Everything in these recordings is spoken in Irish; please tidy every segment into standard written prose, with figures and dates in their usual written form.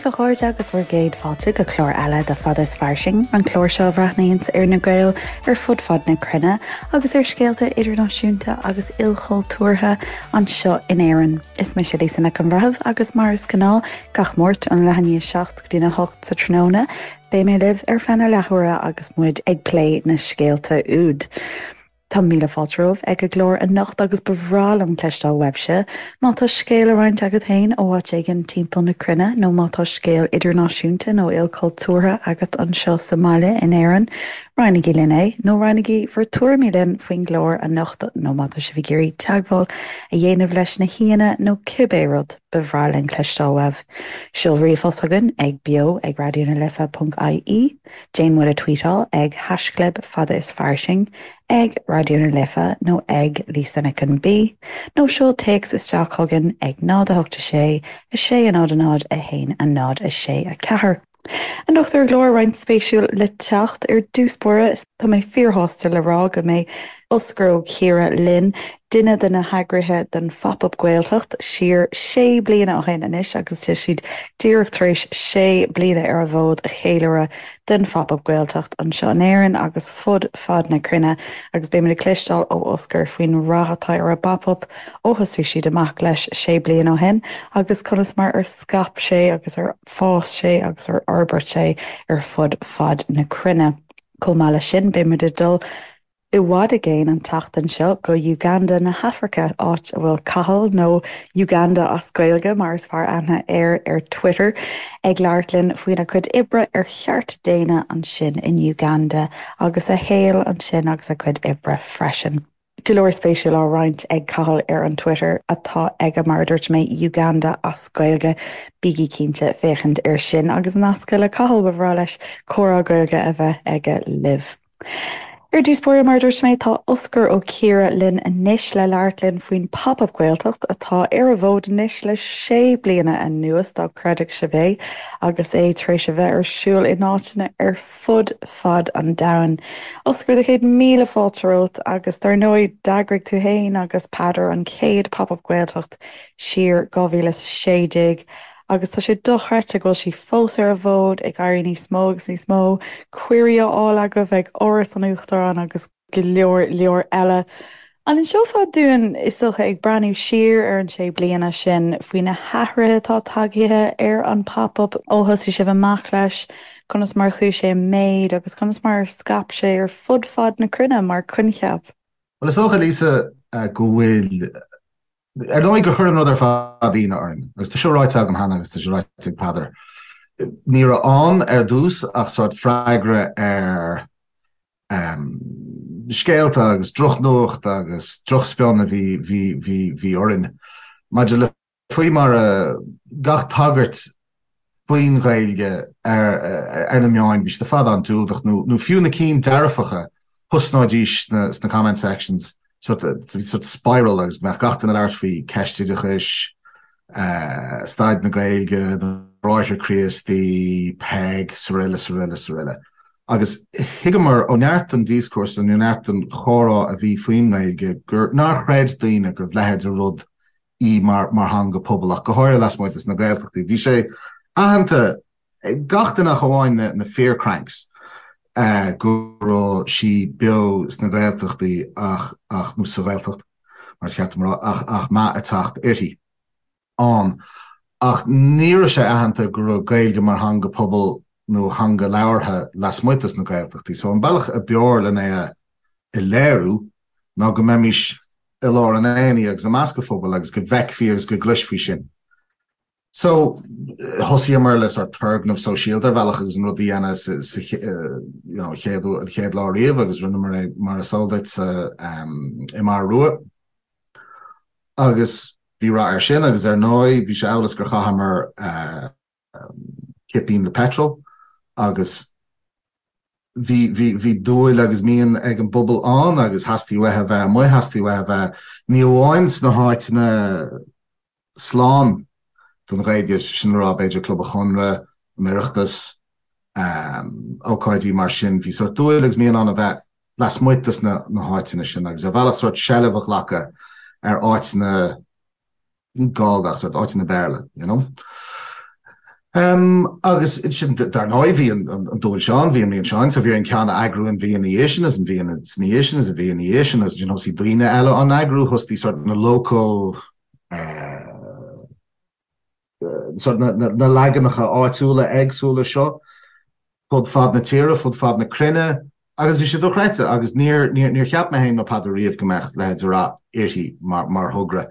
daoibh a chairde agus bhur gcéad fáilte go clár eile de Fada is Fairsing, an clár seo a bhreathnaíonns ar na Gaeil ar fud fad na cruinne agus ar scéalta idirnáisiúnta agus ilchultúrtha anseo in Éirinn. Is mise Lisa Nic an Bhreithimh agus mar is gnáth gach Máirt ón leath i ndiaidh 7 go dtína 8 sa tráthnóna, beidh mé libh ar feadh na leathuaire agus muid ag plé na scéalta úd. Tá míle fáilte romhaibh ag an gclár anocht agus ba bhreá liom cloisteáil uaibhse má tá scéal le roinnt agat féin ó áit éigin timpeall na cruinne nó má tá scéal idirnáisiúnta nó ilchultúrtha agat anseo sa mbaile in Éirinn, roinnigí linn é nó roinnigí bhur tuairimí linn faoin gclár anocht nó má tá sibh ag iarraidh teagmháil a dhéanamh leis na haíonna nó cibé rud, ba bhreá linn cloisteáil uaibh. Seol ríomhphost chugainn ag beo ag raidionalife.ie. Déan muid a tweetáil ag haischlib fada is fairsing, ag Raidió na Life nó ag Lisa Nic an B, nó seol téacs isteach chugainn ag 0 8 6 6 0 0 1 0 6 4. Anocht ar an gclár, roinnt spéisiúil le teacht. Ar dtús báire, tá mé fíorshásta le rá go mbeidh Osgur Ó Ciardha linn, duine de na heagraithe den Phop Up Gaeltacht siar sé bliana ó shin anois agus tá siad díreach tar éis sé bliana ar an bhfód a cheiliúradh den Phop Up Gaeltacht anseo in Éirinn agus fud fad na cruinne agus beimid ag cloisteáil ó Osgur faoin rath atá ar an bPop Up ó thosaigh siad amach leis sé bliana ó shin agus conas mar ar scaip sé agus ar fás sé agus ar fhorbair sé ar fud fad na cruinne. Chomh maith leis sin beimid ag dul i bhfad i gcéin an tseachtain seo go Uganda na hAfraice, áit a bhfuil Cathal, nó Uganda as Gaeilge mar is fearr aithne air ar Twitter, ag labhairt linn faoina chuid oibre ar chearta daonna ansin in Uganda agus a shaol ansin agus a chuid oibre freisin. Go leor spéisiúil á roinnt ag Cathal ar an Twitter atá aige, mar a dúirt mé, Uganda as Gaeilge. Bígí cinnte féachaint air sin agus nascadh le Cathal, ba bhreá leis comhrá Gaeilge a bheith aige libh. Ar dtús báire, mar a dúirt mé, tá Osgur Ó Ciardha linn anois le labhairt linn faoin Pop Up Gaeltacht atá ar an bhfód anois le sé bliana anuas, dá gcreidfeadh sibh é, agus é tar éis a bheith ar siúl in áiteanna ar fud fad an domhain. Osgur, do chéad míle fáilte romhat agus dar ndóigh d'eagraigh tú féin agus Peadar an chéad Pop Up Gaeltacht siar 2016. Agus tá sé dochreidte go bhfuil sí fós ar an bhfód, ag éirí níos mó agus níos mó cuirí á fháil agaibh ag Áras an Uachtaráin agus go leor leor eile. An inseofá dúinn, is dócha, ag breathnú siar ar an sé bliana sin, faoi na hathruithe atá tagaithe ar an Pop Up ó thosaigh sibh amach leis, conas mar a chuaigh sé i méid agus conas mar ar scaip sé ar fud fad na cruinne mar choincheap? Bhuel, is dócha, Lisa, go bhfuil Ar ndóigh gur chuir an rud ar fad ionadh orainn, agus tá seo ráite agam cheana agus tá sé ráite ag Peadar, ní raibh ann ar dtús ach sórt freagra ar scéalta agus drochnuacht agus drochspion a bhí, bhí, bhí, bhí orainn maidir le faoi mar a gach tagairt faoin Ghaeilge ar na meáin, bhí siad ar fad an-diúltach, nó fiú na cinn dearfacha, thosnóidís sna comment sections, sort, bhí sort spiral agus go mbeadh gach duine ag labhairt faoi ceist oideachais, staid na Gaeilge, na Bráithre Críostaí, Peig, sroile, sroile, sroile. Agus thuigeamar ó neart den díoscúrsa nó neart den chomhrá a bhí faoin nGaeilge gur nár chreid daoine go raibh leithéid de rud í mar theanga pobail, ach go háirithe lasmuigh des na Gaeltachtaí. Bhí sé aitheanta ag gach duine ach amháin na fíor-cranks go raibh sí beo sna Gaeltachtaí ach, ach, nó sa Ghaeltacht, mar is ceart dom a rá, ach, ach meath ag teacht uirthi ann. Ach ní raibh sé aitheanta go raibh Gaeilge mar theanga pobail nó theanga labhartha lasmuigh des na Gaeltachtaí. So an bealach a b'fhearr len é a léiriú ná go mbeimis i lár an aonaigh agus i measc an phobail agus go bhfeicfí agus go gcloisfí sin. So, thosaíomar le sort turgnamh sóisialta ar bhealach agus an rud a dhéanamh sa you know, chéad, an chéad lá riamh agus rinneamar é mar is eol duit sa i mBarra Rua. Agus bhí rath air sin agus ar ndóigh bhí sé amhail is gur chaitheamar cipín le petrol agus bhí, bhí, bhí dúil agus mian ag an bpobal ann agus theastaigh uathu a bheith amuigh, theastaigh uathu a bheith ní amháin sna háiteanna slán don Ghaeilge, sin le rá b'fhéidir Club an Chonradh, an Oireachtas, ócáidí mar sin, bhí sórt dúil agus mian ann a bheith lasmuigh de na háiteanna sin agus ar bhealach sórt seilbh a ghlacadh ar áiteanna ní Gallda ach sórt áiteanna Béarla, you know. Agus ansin, dar ndóigh, bhí an dúil seo ann, bhí an mian seo ann, so bhí orainn ceann a eagrú an mhí ina dhiaidh sin, agus an mhí ina dhiaidh sin, agus an mhí ina dhiaidh sin, agus ansin thosaigh daoine eile á n-eagrú, thosaigh sort na local, sort na leaganacha áitiúla éagsúla seo fud fad na tíre, fud fad na cruinne agus bhí sé dochreidte agus níor, níor, níor cheap mé féin nó Peadar riamh go mbeadh leithéid de rath uirthi mar, mar thogra.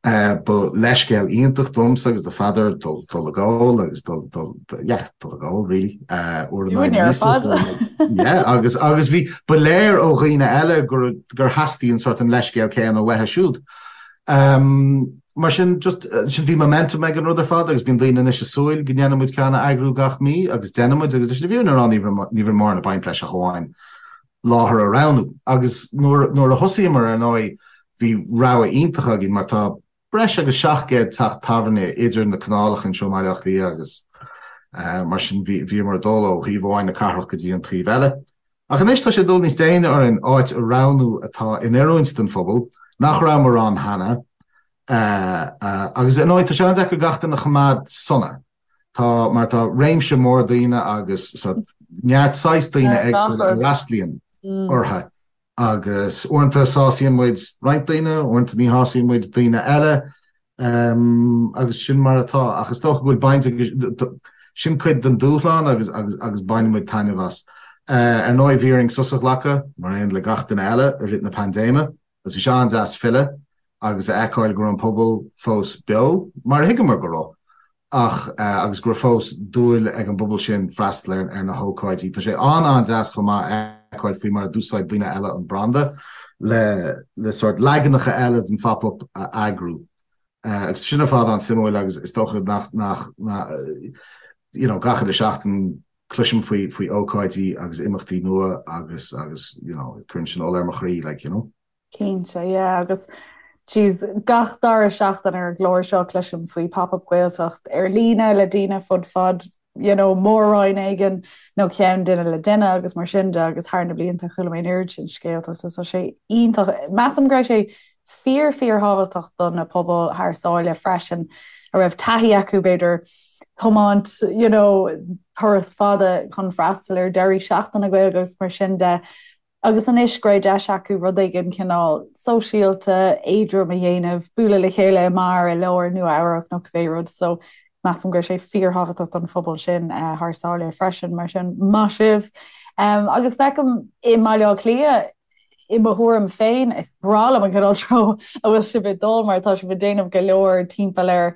Ba leithscéal iontach domsa agus do Pheadar dul, dul ag ól agus dul, dul, yeah, dul ag ól really, uair in aghaidh na míosa. Yeah, agus, agus bhí, ba léir ó dhaoine eile gur, gur theastaigh an sort an leithscéal céanna uathu siúd. Mar sin, just, sin bhí momentum ag an rud ar fad agus bíonn daoine anois ag súil go ndéanfaidh muid ceann a eagrú gach mí agus déanann muid agus leis an bhfírinne a rá ní raibh ní raibh mórán ag baint leis ach amháin láthair a roghnú. Agus nuair nuair a thosaíomar ar ndóigh bhí rogha iontach againn mar tá breis agus 700 teach tábhairne idir na canálacha anseo i mBaile Átha Cliath agus mar sin bhí bhíomar ag dul ó thaobh amháin na cathrach go dtí an taobh eile. Ach anois tá sé ag dul níos déine orainn áit a roghnú atá in oiriúint don phobal, nach rabhamar ann cheana, agus ar ndóigh tá sé an-deacair gach duine a choimeád sona. Tá, mar tá réimse mór daoine agus sort neart saghas daoine éagsúla a fhreastlaíonn orthu agus uaireanta sásaíonn muid roinnt daoine, uaireanta ní shásaíonn muid daoine eile. Agus sin mar atá. Ach is dócha go bhfuil baint ag, sin cuid den dúshlán agus agus agus baineann muid taitneamh as. Ar ndóigh bhí orainn sos a ghlacadh, mar aon le gach duine eile, i rith na paindéime agus bhí sé an-deas filleadh agus a fheiceáil go raibh an pobal fós beo, mar a thuigeamar go raibh. ach agus go raibh fós dúil ag an bpobal sin freastal ar na hócáidí. Tá sé an-an-deas chomh maith a fheiceáil faoi mar a d'úsáid daoine eile an branda le le sórt leaganacha eile den phop-up a eagrú. Agus sin ar fad an-suimiúil agus is dócha nach nach you know gach uile seachtain cloisim faoi faoi ócáidí agus imeachtaí nua agus agus you know cuireann sin ola ar mo chroí like you know. Cinnte, yeah, agus jeez, gach dara seachtain ar an gclár seo cloisim faoi Pop-Up Gaeltacht ar líne le daoine fud fad you know, mór-roinn éigin nó ceann duine le duine agus mar sin de agus thar na blianta chuala mé an oiread sin scéalta so tá sé iontach. Measaim go raibh sé fíor fíorthábhachtach do na pobail thar sáile freisin a raibh taithí acu b'fhéidir tiomáint you know, turas fada chun freastal ar deirí seachtaine Gaeilge agus mar sin de. Agus anois go raibh deis acu rud éigin cineál sóisialta, éadrom a dhéanamh, bualadh le chéile i mbeár i lár Nua Eabhrac nó cibé rud. So measaim go raibh sé fíorthábhachtach don phobal sin thar sáile freisin. Mar sin, maith sibh. Agus feicim i mBaile Átha Cliath, i mo thuairim féin, is breá liom an cineál treo a bhfuil sibh ag dul mar tá sibh ag déanamh go leor timpeall ar,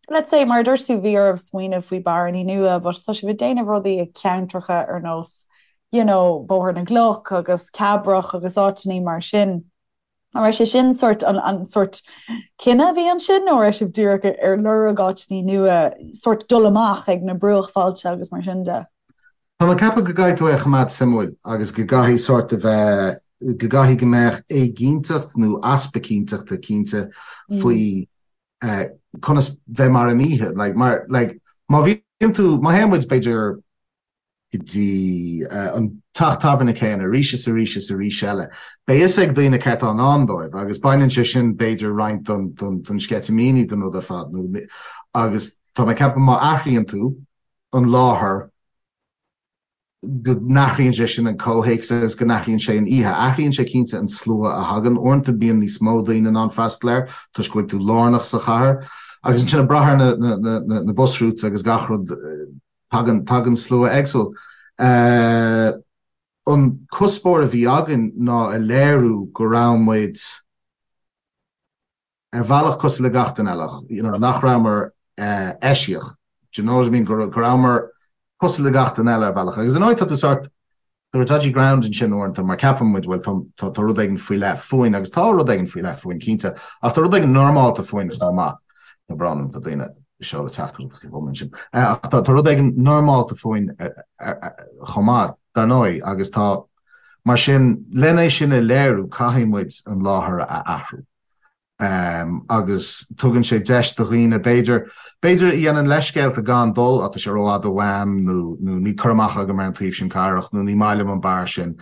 let's say, mar a dúirt tú, bhí oraibh smaoineamh faoi bearannaí nua, but tá sibh ag déanamh rudaí i ceantracha ar nós you know, Bóthar na gCloch agus Cabrach agus áiteanna mar sin. An raibh sé sin sort an, an sort cinneadh a bhí ansin nó raibh sibh díreach ar lorg áiteanna nua sort dul amach ag na bruachbhailte agus mar sin de? Tá mé ag ceapadh go gcaithfidh tú é a choimeád suimiúil agus go gcaithfidh sort a bheith, go gcaithfidh go mbeadh éiginnteacht nó easpa cinnteachta cinnte faoi conas bheith mar an oíche. Like, mar, like, má bhíonn tú, má théann muid b'fhéidir go dtí an teach tábhairne céanna arís is arís is arís eile. Beidh fhios ag daoine céard atá i ndán dóibh agus baineann sé sin b'fhéidir roinnt don sceitimíní den rud ar fad nó agus tá mé ag ceapadh má athraíonn tú an láthair go n-athraíonn sé sin an comhthéacs agus go n-athraíonn sé an oíche. Athraíonn sé cinnte an slua a thagann. Uaireanta bíonn níos mó daoine in ann freastal air toisc go bhfuil tú lárnach sa chathair agus ansin ag brath ar na bus routes agus gach rud Tagann, tagann slua éagsúil. An cuspóir a bhí againn ná a léiriú go raibh muid ar bhealach cosúil le gach duine eile, you know, nach rabhamar eisiach, do you know what I mean, go rabhamar cosúil le gach duine eile ar bhealach. Agus ar ndóigh tá tú sort, Tá dodgy ground ansin uaireanta mar ceapann muid, bhuel, tá tá rud éigin faoi leith fúinn agus tá rud éigin faoi leith fúinn cinnte, ach tá rud éigin normálta fúinn chomh maith. Tá brón orm, tá daoine ag seoladh teachtaireachtaí chugam ansin. Ach tá tá rud éigin normálta fúinn chomh maith, dar ndóigh, agus tá, mar sin, len é sin a léiriú caithfidh muid an láthair a athrú. agus tugann sé deis do dhaoine, b'fhéidir, b'fhéidir a dhéanann leithscéalta gan dul, á tá sé rófhada uaim nó nó níl cur amach agam ar an taobh sin cathrach nó ní maith liom an beár sin.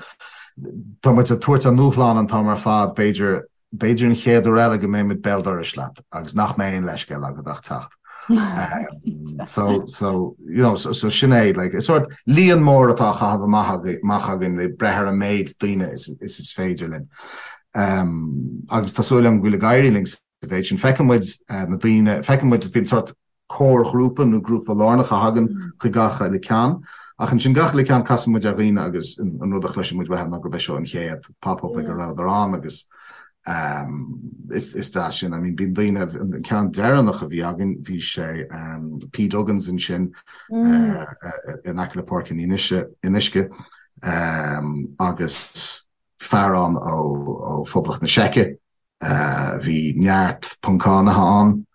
Tá muid ag tabhairt an dúshlán an t-am ar fad, b'fhéidir, b'fhéidir an chéad uair eile go mbeidh muid béal dorais leat agus nach mbeidh aon leithscéal agat ach teacht. So, so, you know, so, so sin é, like, is sort líon mór atá á chaitheamh amach, amach againn le breith ar an méid daoine is, is is féidir linn. Um, agus tá súil agam go bhfuil ag éirí linn sa mhéid sin. Feiceann muid uh, na daoine, feiceann muid bíonn sort comharghrúpa nó grúpa lárnach a thagann chuig gach uile ceann. Ach ansin gach uile ceann casann muid ar dhaoine agus an rud a chloiseann muid uathu ná gurb é seo an chéad pop-up ag a rabhadar ann agus is deas sin. I mean bíonn daoine, an ceann deireanach a bhí againn bhí sé P Duggan's ansin in aice le Páirc an Fhionnuisce agus fear ann ó Phoblacht na Seice, bhí neart Poncánaithe ann.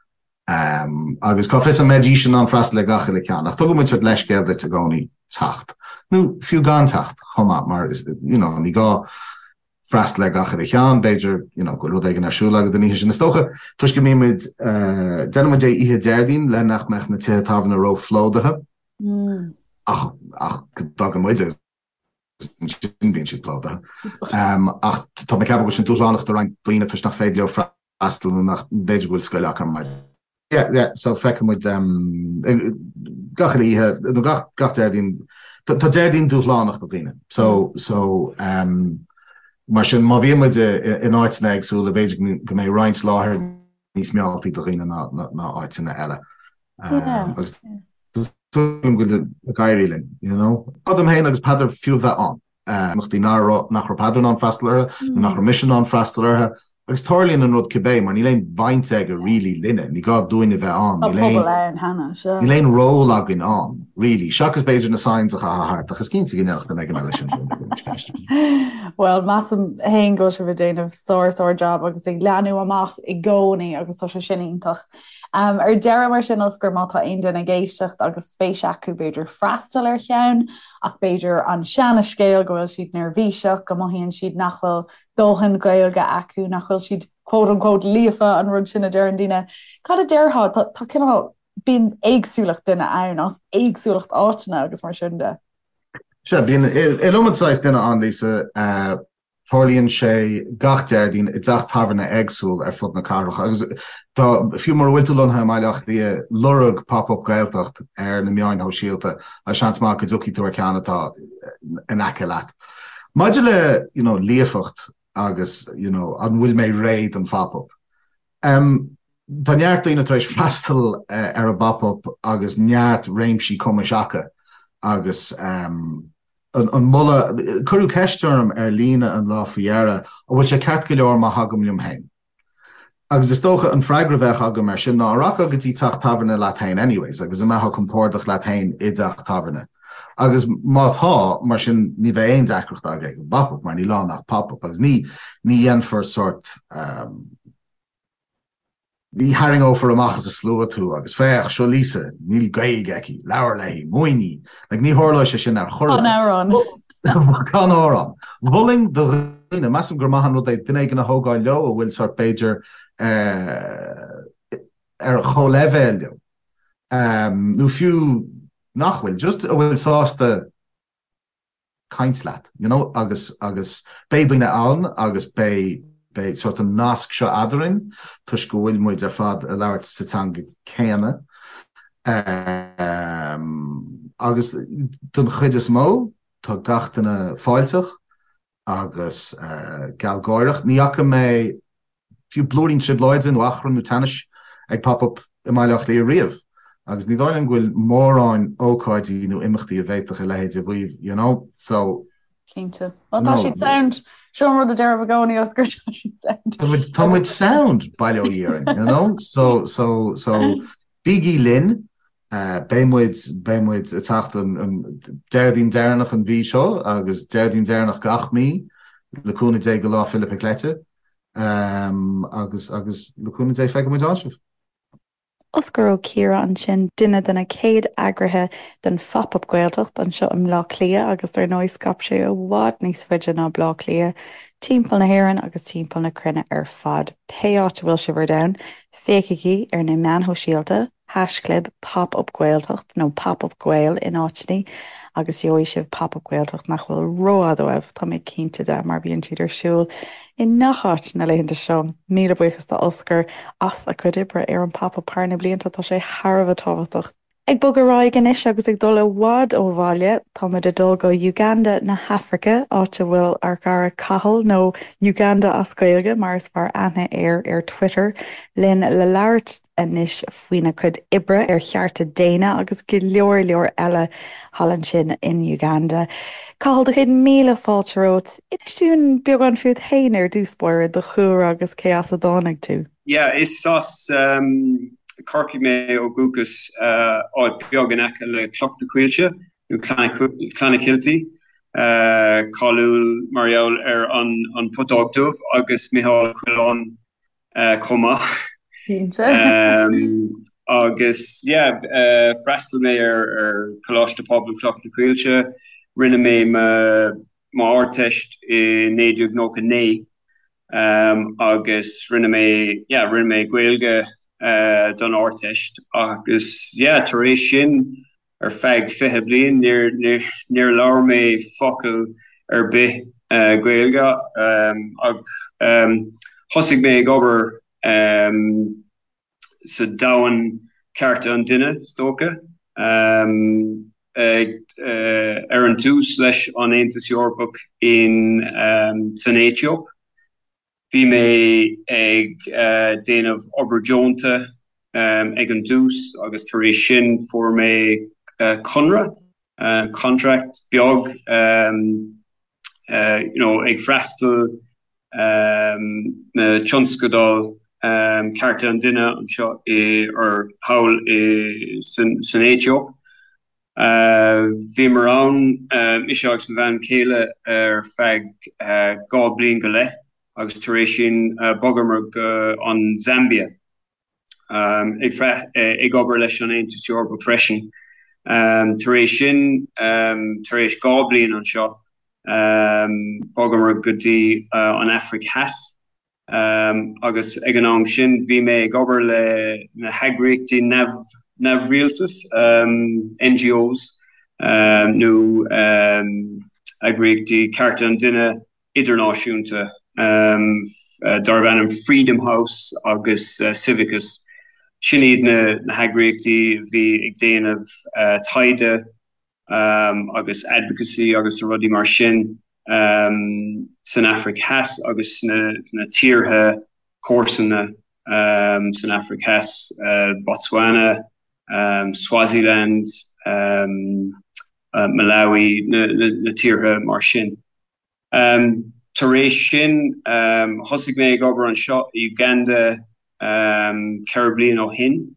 Agus cá bhfios an mbeidís in ann freastal ar gach uile ceann, ach tugann muid sort leithscéal duit i gcónaí teacht, nó fiú gan teacht chomh maith, mar you know ní gá freastal ar gach uile cheann, b'fhéidir you know go bhfuil rud éigin ar siúl agat an oíche sin. Is dócha, toisc go mbíonn muid, déanann muid é oíche Déardaoin le nach mbeadh na tithe tábhairne ró-phlódaithe, ach ach go dtagann muid agus ansin bíonn siad plódaithe. Ach tá mé ag ceapadh go bhfuil sin dúshlánach do roinnt daoine toisc nach féidir leo freastal freastal nó nach b'fhéidir go bhfuil scoil acu ar maidin. Yeah, yeah, so feicfidh muid gach uile oíche, nó gach, gach Déardaoin, tá Déardaoin dúshlánach do dhaoine. So, so, mar sin, má bhíonn muid in áiteanna éagsúla, b'fhéidir go mbeidh roinnt láthair níos mealltaí do dhaoine ná, ná áiteanna eile. Agus go bhfuil ag éirí linn, you know. Dom féin agus Peadar fiú bheith ann. imeachtaí nach raibh Peadar in ann freastal orthu, nó nach raibh mise in ann freastal orthu. Agus tarlaíonn an rud cibé, mar níl aon bhaint aige really linne, ní gá dúinn a bheith ann, níl aon, níl aon ról againn ann, really, seachas b'fhéidir na signs a chaitheamh thart, ach is cinnte go ndéanfadh duine éigin eile sin. Bhuel, measaim féin go bhfuil sibh ag déanamh sár sár job agus ag leathnú amach i gcónaí agus tá sé sin iontach. Ar deireadh mar sin, Osgur, má tá aon duine ag éisteacht agus spéis acu b'fhéidir freastal ar cheann, ach b'fhéidir an seana-scéal go bhfuil siad neirbhíseach, go mothaíonn siad nach bhfuil dóthain Gaeilge acu, nach bhfuil siad quote unquote líofa, an rud sin a deireann daoine. Cad a déarfá? Tá, tá cineál, bíonn éagsúlacht duine ann as éagsúlacht áiteanna agus mar sin de. Sea, bíonn iliomad saghas duine ann, Lisa. Tarlaíonn sé gach Déardaoin i dteach tábhairne éagsúil ar fud na cathrach agus tá, fiú mura bhfuil tú lonnaithe i mBaile Átha Cliath, lorg Pop Up Gaeltacht ar na meáin shóisialta agus seans maith go dtiocfaidh tú ar cheann atá in aice leat. Maidir le you know líofacht agus you know an bhfuil mé réidh don phop up? Um, tá neart daoine tar éis freastal ar an bpop up agus neart réimsí cumais acu agus um, an moladh, cuireadh ceist orm ar líne an lá faoi dheireadh, an bhfuil sé ceart go leor má thagaim liom féin? Agus is dócha an freagra a bheadh agam air sin ná, an rachfá go dtí teach tábhairne leat féin anyways agus an mbeifeá compordach leat féin i dteach tábhairne? Agus má tá, mar sin ní bheidh aon deacracht agat ag an bpop-up mar níl ann ach pop-up agus ní ní dhéanfar sórt Ní tharraingeofar amach as an slua tú agus féach, seo Lisa, níl Gaeilge aici, labhair léi, múin í. Like, ní tharlóidh sé sin ar chor ar bith. Can amhrán. Can amhrán. Mholfainn do dhaoine, measaim gur maith an rud é duine éigin a thógáil leo a bhfuil sórt b'fhéidir ar a chomhleibhéal leo, nó fiú nach bhfuil, just a bhfuil sásta caint leat, you know, agus, agus beidh daoine ann agus beidh, beidh sórt an nasc seo eadrainn toisc go bhfuil muid ar fad ag labhairt sa teanga céanna. Um, agus don chuid is mó, tá gach duine fáilteach agus uh, gealgháireach. Ní fhaca mé fiú blúirín trioblóide nó achrann nó teannais ag Pop Up i mBaile Átha Cliath riamh agus ní dóigh liom go bhfuil mórán ócáidí nó imeachtaí a bhféadfadh a leithéid a mhaíomh, you know, so. Cinnte. Bhuel, tá siad sound. Seo an rud a deirim i gcónaí, Osgur, tá siad sound. Tá muid, tá muid sound, bail ó Dhia orainn, you know, so, so, so, bígí linn, beidh muid, beidh muid ag teacht an, an Déardaoin deireanach an mhí seo agus Déardaoin deireanach gach mí, le cúnamh Dé go Lá Fhéile Pic Leite. Agus agus le cúnamh Dé feicfidh muid ann sibh. Osgur Ó Ciardha ansin, duine de na chéad eagraithe den Phop Up Gaeltacht anseo i mBleá Cliath agus dar ndóigh scaip sé i bhfad níos faide ná Bleá Cliath, timpeall na hÉireann agus timpeall na cruinne ar fad. Pé áit a bhfuil sibh ar domhan, féachaigí ar na meáin shóisialta. haischlib Pop Up Gaeltacht nó Pop Up Gael in áiteanna agus gheobhaidh sibh Pop Up Gaeltacht nach bhfuil rófhada uaibh, tá mé cinnte de, mar bíonn siad ar siúl i ngach áit na laethanta seo. Míle buíochas do Oscar as a chuid oibre ar an Pop Up thar na blianta, tá sé thar a bheith tábhachtach. Ag bogadh ar aghaidh anois agus ag dul i bhfad ó bhaile, táimid ag dul go Uganda na hAfraice, áit a bhfuil ár gcara Cathal, nó Uganda as Gaeilge mar is fearr aithne air ar Twitter, linn le labhairt anois faoina chuid oibre ar chearta daonna agus go leor leor eile thall ansin in Uganda. Cathal, do chéad míle fáilte romhat. Inis dúinn beagán fút féin ar dtús báire, do chúlra agus cé as a dtáinig tú. Yeah, is as Corcaigh mé ó dhúchas, áit beag in aice le Cloch na Coillte, nó Clonakilty, cáiliúil mar gheall ar an Putóg Dubh agus Micheál Ó Coileáin chomh maith. Cinnte. Agus yeah, freastal mé ar Choláiste Pobail Chloch na Coillte, rinne mé m'Ardteist i 1999. Agus rinne mé, yeah, rinne mé Gaeilge don Ardteist agus, yeah, tar éis sin ar feadh 20 bliain níor, níor, níor labhair mé focal ar bith Gaeilge ach thosaigh mé ag obair sa domhan cearta an duine, is dócha, ar an tús leis an Aontas Eorpach in san Aetóip. Bhí mé ag déanamh obair deonta ag an dtús agus tar éis sin fuair mé conradh, contract, beag you know ag freastal na tionscadail cearta an duine anseo i or thall i san Aetóip. Bhíomar ann, mise agus mo bhean chéile ar feadh 2 bliain go leith agus tar éis sin bhogamar go an Zambia. ag obair leis an Aontas Eorpach freisin. Tar éis sin, tar éis 2 bliain anseo, bhogamar go dtí an Afraic Theas agus ag an am sin bhí mé ag obair le na heagraíochtaí neamhrialtais, NGOs, nó eagraíochtaí cearta an duine idirnáisiúnta darb ainm Freedom House agus Civicus. Sin iad na heagraíochtaí a bhí ag déanamh taighde agus advocacy agus rudaí mar sin san Afraic Theas agus sna tíortha comharsana san Afraic Theas, Botswana, Swaziland, Malawi, na tíortha mar sin. Tar éis sin, thosaigh mé ag obair anseo i Uganda 4 bliain ó shin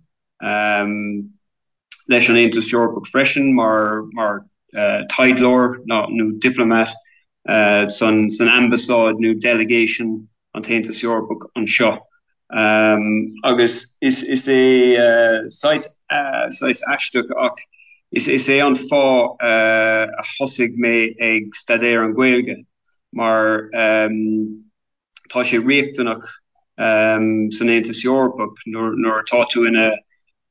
leis an Aontas Eorpach freisin mar mar taighdeoir nó diplomat san san ambasáid nó delegation an tAontas Eorpach anseo. Agus is is é saghas saghas aisteach ach is is é an fáth a thosaigh mé ag staidéar an Ghaeilge mar tá sé riachtanach san Aontas Eorpach nuair nuair atá tú ina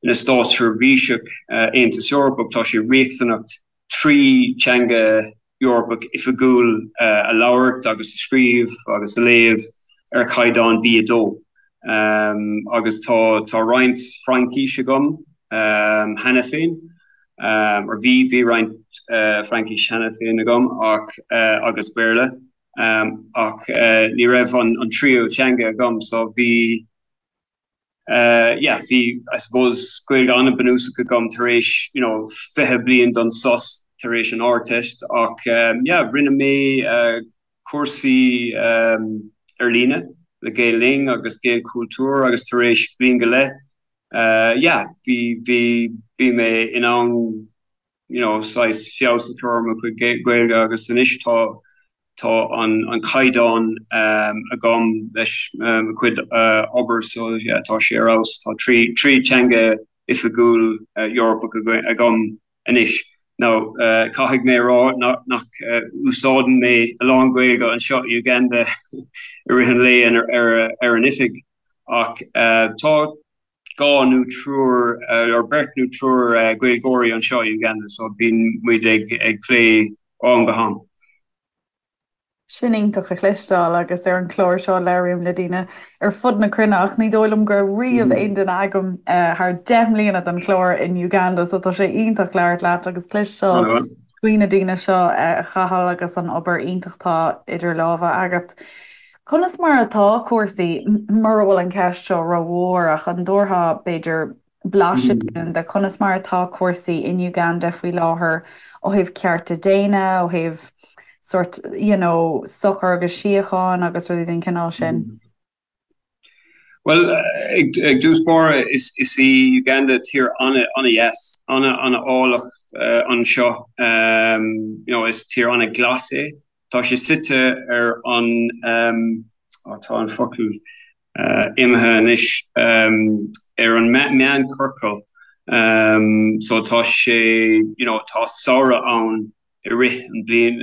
ina státseirbhíseach Aontas Eorpach tá sé riachtanach 3 teanga Eorpach oifigiúil a labhairt agus a scríobh agus a léamh ar chaighdeán B2. Agus tá tá roinnt Fraincis agam cheana féin, or bhí bhí roinnt Fraincis cheana féin agam ach agus Béarla ach ní raibh an an tríú teanga agam so bhí yeah, bhí, I suppose, Gaeilge an-bhunúsach agam tar éis, you know, 20 bliain don sos tar éis an Ardteist ach yeah, rinne mé cúrsaí ar líne le Gael Linn agus Gaelchultúr agus tar éis bliain go leith, yeah, bhí, bhí, bhí mé in ann you know, saghas feabhas a chur ar mo chuid Gaeilge agus anois tá tá an an caighdeán agam leis mo chuid obair so yeah tá sé ar fheabhas. Tá 3 3 teanga oifigiúil Eorpach agam anois. Now caithfidh mé a rá nach úsáideann mé a lán Gaeilge anseo i Uganda i rith an lae ar ar an oifig ach tá. dhá nó triúr or beirt nó triúr Gaeilgeoirí anseo i Uganda so bíonn muid ag ag plé ó am go ham. Sin iontach a chloisteáil agus ar an chlár seo labhraím le daoine ar fud na cruinne ach ní dóigh liom go raibh riamh aon duine agam thar 10 mbliana den chlár in Uganda so tá sé iontach labhairt leat agus cloisteáil faoi na daoine seo a Chathail agus an obair iontach atá idir lámha agat. Conas mar atá cúrsaí, mura bhfuil an ceist seo rómhór ach an dtabharfá b'fhéidir blaiseadh dúinn de conas mar atá cúrsaí in Uganda faoi láthair ó thaobh cearta daonna, ó thaobh sórt you know sochar agus síocháin agus rudaí den chineál sin? Bhuel, ag dtús báire, is í Uganda tír an-dheas, an-áilleacht anseo. You know, is tír an-ghlas é. Tá sé suite ar an, tá an focal imithe anois, ar an meánchiorcal. So tá sé, you know, tá samhradh ann i rith an bliain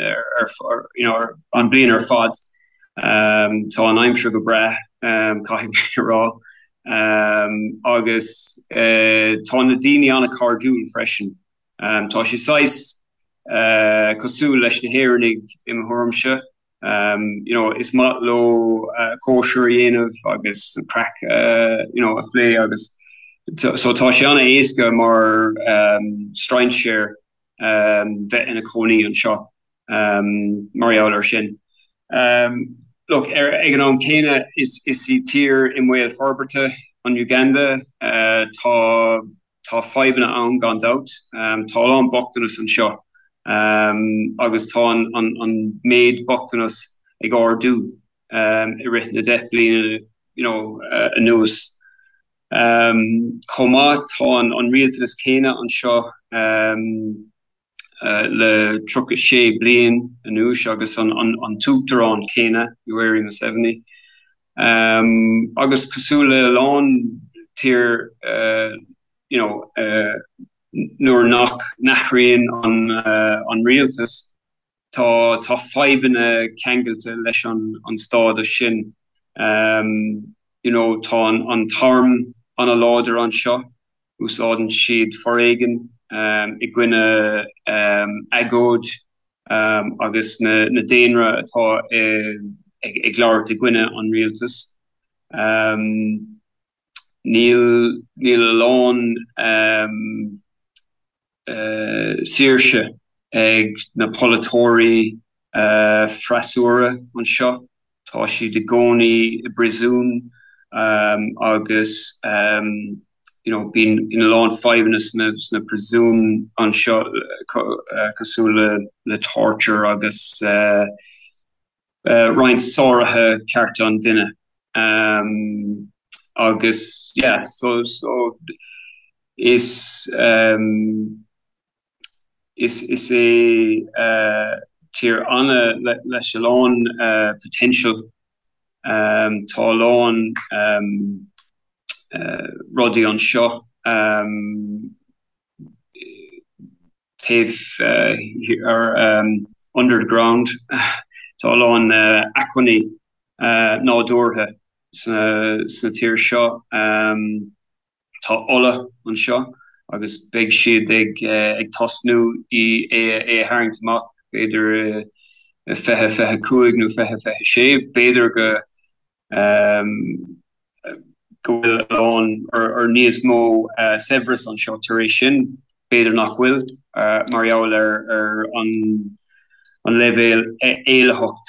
you know an bliain ar fad. Tá an aimsir go breá, caithfidh mé a rá, agus tá na daoine an-chairdiúil freisin. Tá sé saghas cosúil leis na hÉireannaigh i mo thuairimse. You know is maith leo cóisir a dhéanamh agus an craic you know a phlé agus so tá sé an-éasca mar strainséir bheith ina cónaí anseo mar gheall air sin. Look, ag an am céanna, is í tír i mbaol forbartha an Uganda. Tá tá fadhbanna ann gan dabht. Tá a lán bochtanas anseo agus tá an méid bochtanas ag ardú i rith na 10 bliana you know anuas. Chomh maith, tá an rialtanas céanna anseo le 36 bliain anuas agus an t-uachtarán céanna, Yoweri Museveni. Agus cosúil le a lán tír you know nuair nach n-athraíonn an rialtas, Tá tá fadhbanna ceangailte leis an an stádas sin. You know tá an an t-arm an-láidir anseo, úsáideann siad foréigean i gcoinne agóid agus na na daonra atá ag ag labhairt i gcoinne an rialtas. Níl níl a lán saoirse ag na polaiteoirí freasúra anseo. Tá siad i gcónaí i bpríosún agus you know bíonn a lán fadhbanna sna sna príosúin anseo cosúil le le torture agus roinnt sáruithe cearta an duine agus yeah so so is is is é tír ana leis a lán potential tá a lán rudaí anseo taobh ar under the ground. Tá a lán acmhainní nádúrtha sa tír seo. Tá ola anseo agus beidh siad ag tosnú é a tharraingt amach b'fhéidir i 2025 nó 2026. B'fhéidir go go bhfuil a lán or níos mó saibhreas anseo tar éis sin, b'fhéidir nach bhfuil, mar gheall ar an leibhéal éillitheacht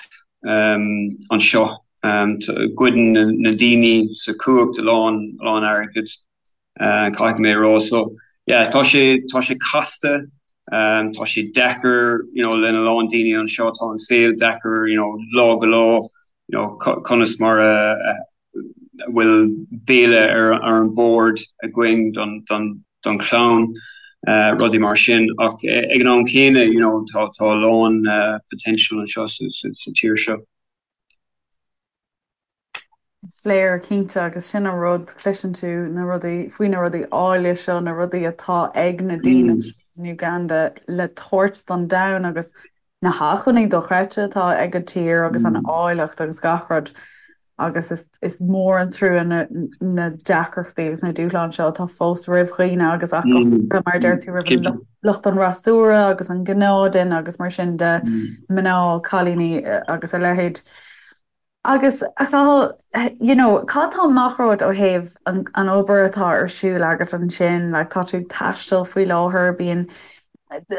anseo. Goideann na daoine sa chumhacht a lán a lán airgid, caithfidh mé a rá. So yeah, tá sé tá sé casta, tá sé deacair you know lena lán daoine anseo, tá an saol deacair you know lá go lá. you know conas mar a bhfuil béile ar an bord againn don don don chlann, rudaí mar sin ach ag an am céanna you know tá tá a lán potential anseo sa sa tír seo. Is léir cinnte agus sin an rud, cloiseann tú na rudaí faoi na rudaí áille seo, na rudaí atá ag na daoine seo in Uganda le tabhairt don domhan agus na hacmhainní dochreidte atá ag an tír agus an áilleacht agus gach rud. agus is is mór an trua na na deacrachtaí agus na dúshláin seo atá fós roimh dhaoine agus ach go háirithe mar a deir tú roimh an lucht an fhreasúra agus an gnáthduine agus mar sin de, mná, cailíní agus a leithéid. Agus a Chathail, you know, cad tá amach romhat ó thaobh an an obair atá ar siúl agat ansin, like tá tú ag taisteal faoi láthair, bíonn,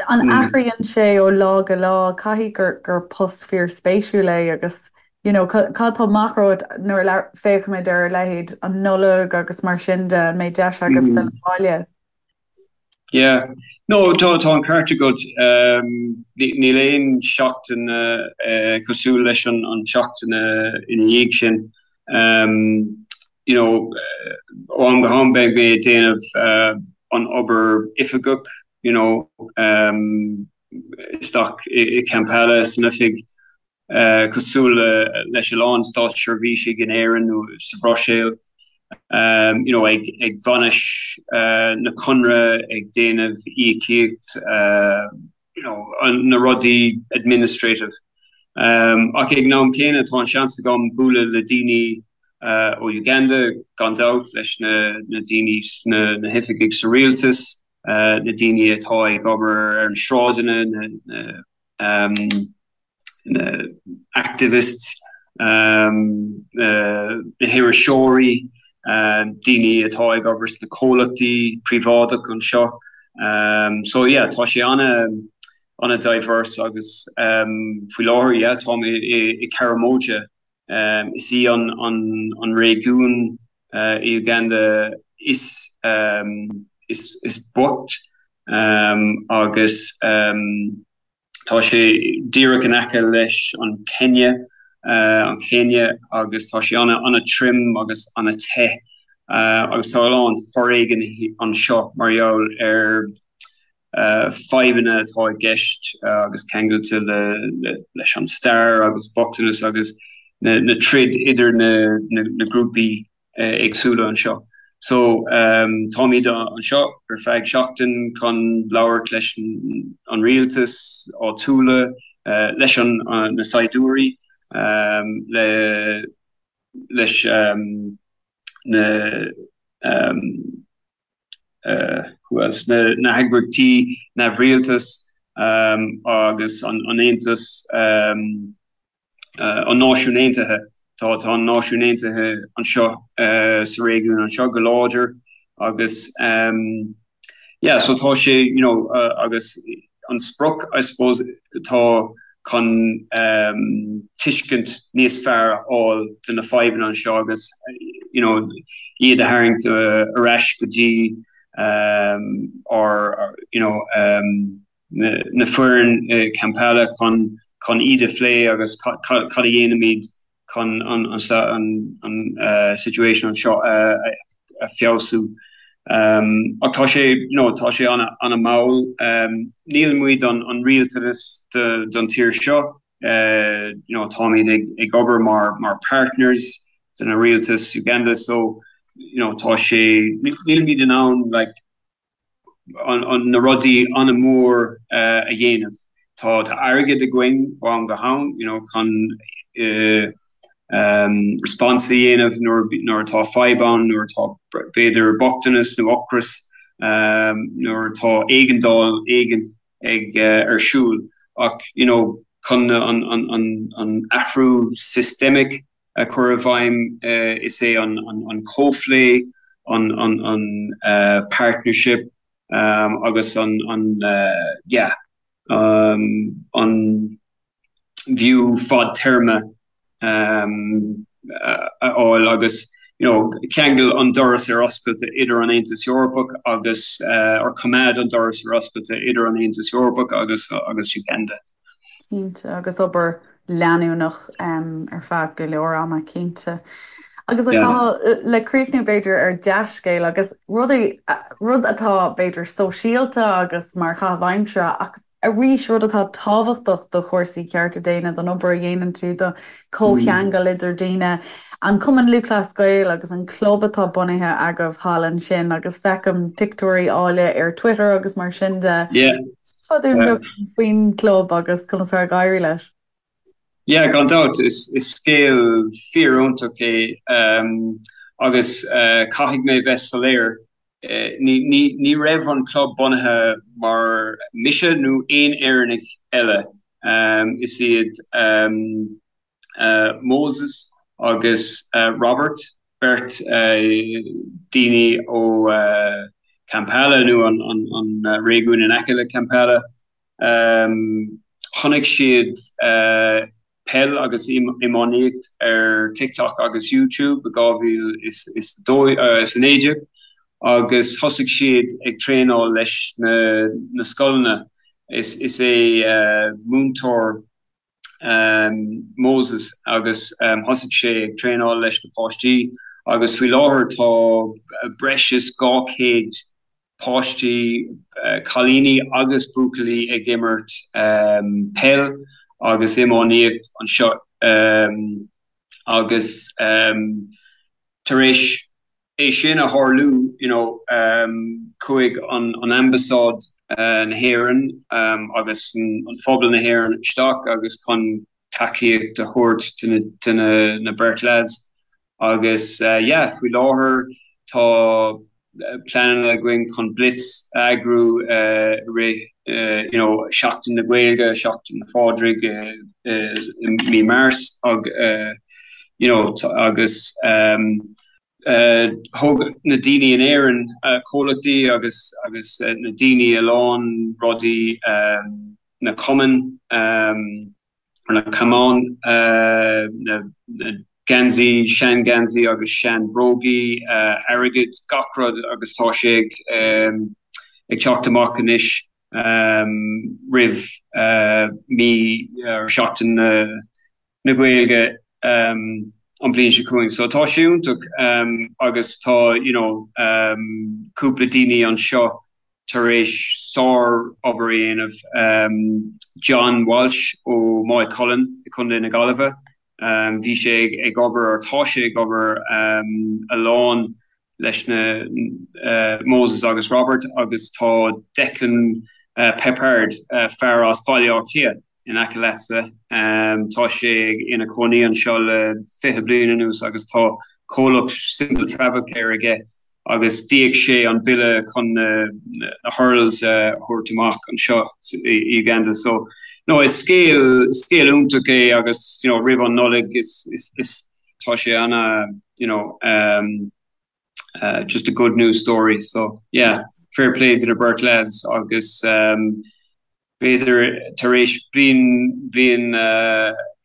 an athraíonn sé ó lá go lá, caithfidh gur gur post fíorspéisiúil é agus you know, cad tá amach romhat nuair a féachaimid ar a leithéid an Nollaig agus mar sin de, an mbeidh deis agat filleadh abhaile? Yeah. No, tá tá an ceart agat. Níl aon seachtain cosúil leis an an seachtain ina dhiaidh sin. You know, ó am go ham beidh mé ag déanamh an obair oifigeach, you know, isteach i Kampala san oifig. cosúil leis a lán státseirbhísigh in Éirinn nó sa Bhruiséil, you know, ag ag bainis na conradh, ag déanamh íocaíocht, you know, na rudaí administrative. Ach ag an am céanna tá an seans agam bualadh le daoine ó Uganda, gan dabht, leis na na daoine sna na hoifigigh sa rialtas, na daoine atá ag obair ar na sráideanna, na na na activists, na hiriseoirí, daoine atá ag obair sna comhlachtaí príobháideach anseo. So yeah, tá sé ana ana diverse agus faoi láthair yeah, táim i Karamoja. Is í an an réigiún i Uganda is is is boicht agus Tá sé díreach in aice leis an Kenya, an Chéinia, agus tá sé an-trom agus an-te agus tá a lán foréigin anseo mar gheall ar fadhbanna atá i gceist agus ceangailte leis an stair agus bochtanas agus na troid idir na grúpaí. éagsúla anseo. So táimid anseo ar feadh seachtain chun labhairt leis an rialtas áitiúla, leis an na saighdiúirí, le leis na who else, na na heagraíochtaí neamhrialtais agus an Aontas an Náisiún Aontaithe. Tá tá an Náisiún Aontaithe anseo sa réigiún anseo go láidir agus yeah so tá sé you know agus an sprioc I suppose atá chun tuiscint níos fearr a fháil de na fadhbanna anseo agus you know iad a tharraingt ar ais go dtí ár you know na foireann i Kampala chun chun iad a phlé agus cad a dhéanaimid chun an an situation anseo a feabhsú. Ach tá sé you know tá sé ana ana mall. Níl muid an an rialtanas don tír seo you know táimid ag ag obair mar mar partners de na rialtas Uganda so you know tá sé nílimid in ann like na rudaí an-mhór a dhéanamh. Tá airgead againn ó am go ham you know chun response a dhéanamh nuair atá fadhb ann, nuair atá b'fhéidir bochtanas nó ocras, nuair atá éigeandáil éigin ag ar siúl ach you know chun an athrú systemic a chur i bhfeidhm, is é an comhphlé, an partnership agus an yeah an view fadtéarma a fháil agus you know ceangal an doras ar oscailte idir an Aontas Eorpach agus or coimeád an doras ar oscailte idir an Aontas Eorpach agus agus Uganda. Cinnte, agus obair leanúnach ar feadh go leor ama, cinnte. Agus a Chathail, le críochnú b'fhéidir ar dea-scéal agus rudaí, rud atá b'fhéidir sóisialta agus mar chaitheamh aimsire ach arís rud atá tábhachtach do chúrsaí cearta daonna, don obair a dhéanann tú, do chomhcheangal idir daoine, an Cumann Lúthchleas Gael agus an club atá bunaithe agaibh thall ansin agus feicim pictiúirí áille ar Twitter agus mar sin de. Fá dtaobh faoin gclub agus conas atá ag éirí leis. Yeah, gan dabht, is scéal fíor-iontach é agus caithfidh mé bheith soiléir, ní raibh an club bunaithe mar mise nó aon Éireannach eile. Is iad Moses agus Robert, beirt daoine ó Kampala nó an réigiún in aice le Kampala, Chonaic siad peil agus iománaíocht ar TikTok agus YouTube i 2019 agus thosaigh siad ag traenáil leis na scoileanna. Is é múinteoir Moses agus thosaigh sé ag traenáil leis na páistí agus faoi láthair tá breis is 200 páistí, cailíní agus buachaillí ag imirt peil agus iománaíocht anseo agus tar éis é sin a tharlú you know chuaigh an ambasáid na hÉireann agus an phobal na hÉireann isteach agus chun tacaíocht a thabhairt do na beirt lads Agus yeah, faoi láthair tá pleananna againn chun blitz a eagrú i rith you know Seachtain na Gaeilge, Seachtain na Phádraig i mí Márts ag you know agus thug na daoine in Éirinn, comhlachtaí agus agus na daoine a lán rudaí na cumainn, na camáin, na geansaí, sean-gheansaí agus sean-bhrógaí, airgead, gach rud agus tá sé ag teacht amach anois roimh mí or Seachtain na Gaeilge an bhliain seo chugainn. So tá sé iontach agus tá you know cúpla daoine anseo tar éis sár-obair a dhéanamh. John Walsh ó Maigh Cuilinn i Contae na Gaillimhe, bhí sé ag obair, or tá sé ag obair a lán leis na Moses agus Robert agus tá Declan Peppard, fear as Baile Átha Cliath in aice leatsa, tá sé ina chónaí anseo le 20 bliain anuas agus tá comhlacht Simple Travel Care aige agus d'íoc sé an bille chun na hurls a thabhairt amach anseo i Uganda. So, no, is scéal, scéal iontach é agus, you know, roimh an Nollaig is, is, is, tá sé ana, you know, um, uh, just a good news story. So, yeah, fair play to the beirt lads agus, um, B'fhéidir tar éis bliain, bliain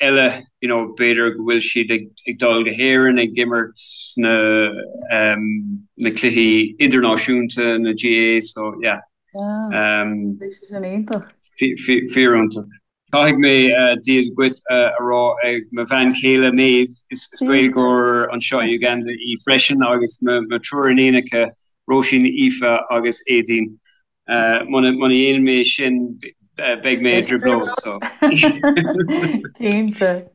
eile, you know, b'fhéidir go bhfuil siad ag, ag dul go hÉirinn ag imirt sna, na cluichí idirnáisiúnta, na GAA, so yeah. Yeah, bheadh sé sin iontach. Fíor-iontach. Caithfidh mé Dia dhuit a rá ag mo bhean chéile Maeve, is Gaeilgeoir anseo i Uganda í freisin agus mo triúr iníonacha, Róisín, Aoife agus Aedín. Muna ndéanann mé sin beidh mé i dtrioblóid so. Cinnte.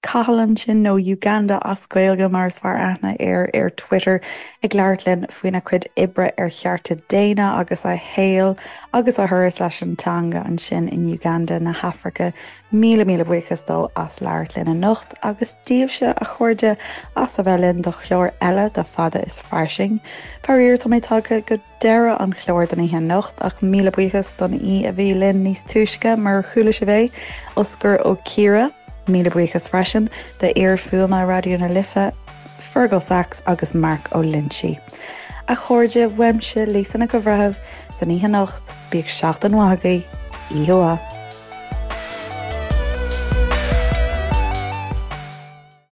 Cathal ansin, nó Uganda as Gaeilge mar is fearr aithne air ar Twitter, ag labhairt linn faoina chuid oibre ar chearta daonna agus a shaol agus a thuras leis an teanga ansin in Uganda na hAfraice. Míle míle buíochas dó as labhairt linn anocht agus daoibhse, a chairde, as a bheith linn do chlár eile de Fada is Fairsing. Faraor, tá mé tagtha go. deireadh an chláir don oíche anocht ach míle buíochas don aoi a bhí linn níos túisce mar chuala sibh é, Osgur Ó Ciardha. Míle buíochas freisin d'fhear fuaime Raidió na Life, Fergal Sachs agus Mark Ó Loinsigh. A chairde, uaimse, Lisa Nic an Bhreithimh, don oíche anocht, bíodh seachtain mhaith agaibh, oíche mhaith.